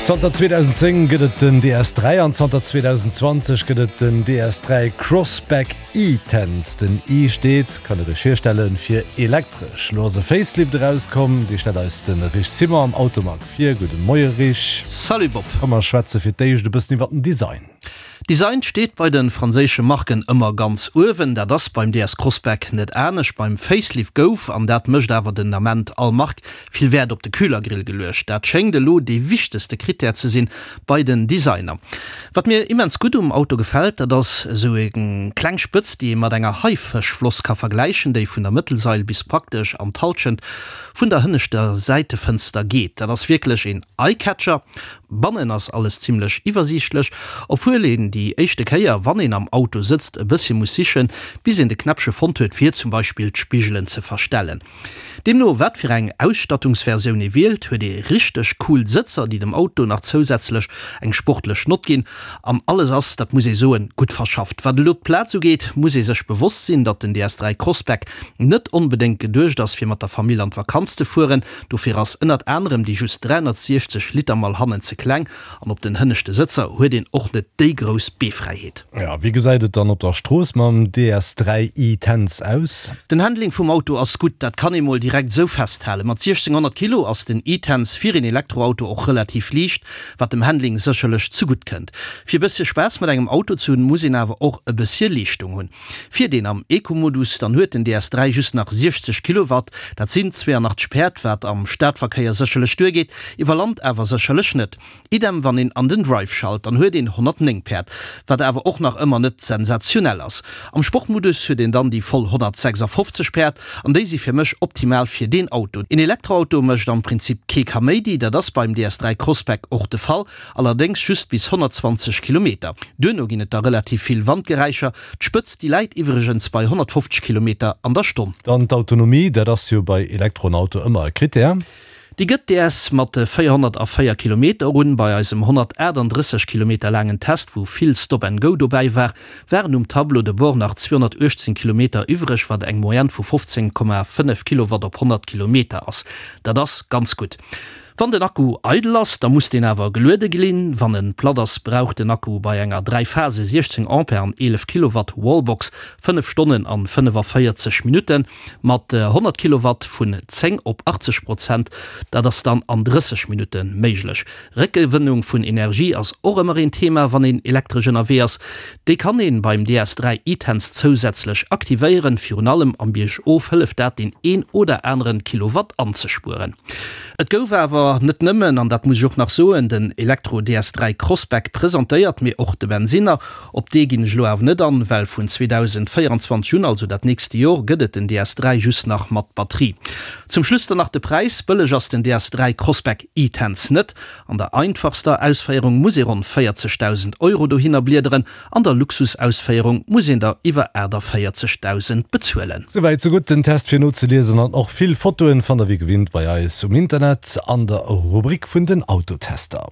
Zanter 2010 gëtt et den DS3 an zanter 2020 gëtt et den DS3 Crossback E-Tense. Den E steet, kann der iech virstellen, fir elektresch. Lo ass e Facelift erauskomm, dee stellt eis de Rich Simon am Automag vir. Gudde Moie Rich. Salut Bob. Komm mer schwätze fir d'éischt e bëssen iwwer den Design. Design steet bei de franséische Marken ëmmer ganz uewen. Dat ass beim DS Crossback net anescht. Beim Facelift gouf, an dat mécht awer den Ament all Mark, vill Wäert op de Kühlergrill geluecht. Dat schéngt elo dee wichtegste Critère ze sinn bei den Designer. Wat mir immens gutt um Auto gefält, dat ass esou eng kleng Spëtz, déi ee mat enger Haifëschfloss ka vergläichen, déi vun der Mëttelsail bis praktesch an d'Hallschent vun der hënneschter Säitefënster geet. Dat ass wierklech een Eyecatcher. Bannen ass alles zimlech iwwersiichtlech, obwuel een déi éischte Kéier, wann een am Auto sëtzt, e bëssche muss sichen, bis een de Knäppche fonnt huet, fir zum Beispill d'Spigelen ze verstellen. Deemno wat fir eng Ausstattungsversioun ee wielt, huet ee richteg cool Sëtzer, déi dem Auto nach zousätzlech eng sportlech Nott ginn. An alles ass, dat muss ee soen, gutt verschafft. Wat elo d'Plaz ugeet, muss ee sech bewosst sinn, datt den DS3 Crossback net onbedéngt geduecht ass, fir mat der Famill an d'Vakanz ze fueren. Dofir ass ënnert anerem déi just 360 Liter Mall hannen ze kleng an op den hënneschte Sëtzer huet een och net déi grouss Beefräiheet. Jo, wéi gesäit et dann op der Strooss mam DS3 e-Tense aus? Den Handling vum Auto ass gutt, dat kann ee mol direkt esou festhalen. Mat 1600 Kilo ass den e-Tense fir een Elektroauto och relativ liicht, wat dem Handling sécherlech zegutt kënnt. Fir e bëssche Spaass mat engem Auto ze hunn, muss een awer och e bëssche Leeschtung hunn. Fiert een am Eco-Modus, dann huet den DS3 just nach 60 Kilowatt, dat sinn 82 Päerd, wat am Stadverkéier sécherlech duergeet, iwwer Land awer sécherlech net. Idem wann een an den Drive schalt, dann huet een 109 Päerd, wat awer och nach ëmmer net sensationell ass. Am Sportmodus huet een dann déi voll 156 Päerd an déi si fir mech optimal fir deen Auto. Een Elektroauto mécht am Prinzip kee Kaméidi, dat ass beim DS3 Crossback och de Fall, allerdéngs just bis 120 Kilometer. Duerno ginn et da relativ vill Wandgeräischer. D'Spëtzt déi läit iwwregens bei 150 Kilometer an der Stonn. Dann d'Autonomie, dat ass jo bei Elektroauto ëmmer e Critère. Déi gëtt DS mat 404 Kilometer un. Bei eisem 138 Kilometer laangen Test, wou vill Stop and Go dobäi war, waren um Tableau de bord nach 218 Kilometer iwwreg, wat eng Moyenne vu 15,5 Kilowatt op 100 Kilometer ass. Dat ass ganz gutt. Wann den Akku eidel ass, da muss deen awer geluede glinn. Wann en platt ass, brauch den Akku bei enger 3 Phase 16 Ampere an 11 Kilowatt Wallbox 5 Stonnen an 45 Minutten. Mat 100 Kilowatt vun 10 op 80 Prozent, dat ass dann an 30 Minutte méiglech. Réckgewënnung vun Energie ass och ëmmer een Thema, wann een elektresch ënnerwee ass. Déi kann een beim DS3 e-Tense zousätzlech aktivéieren. Virun allem am Biergof hëlleft dat deen een oder aneren Kilowatt anzespueren. Et gouf awer net nëmmen, an dat muss ech och nach soen, den Elektro DS3 Crossback presentéiert, mee och de Bensinner. Op dee ginn ech elo awer net an, well vun 2024 un, also dat nächste Jor, gëtt et den DS3 just nach mat Batterie. Zum Schluss dann nach de Präis, Bëlleg ass den DS3 Crossback e-Tense net. An der einfachster Ausféierung muss ee ronn 40.000 Euro dohinner bliederen, an der Luxusausféierung muss een der iwwer 48.000 bezuelen. Souwäit sou gutt, den Test fir nozeliesen an och vill Fotoen fannt der wéi gewinnt bei eis um Internet an der Rubrik vun den Autotester.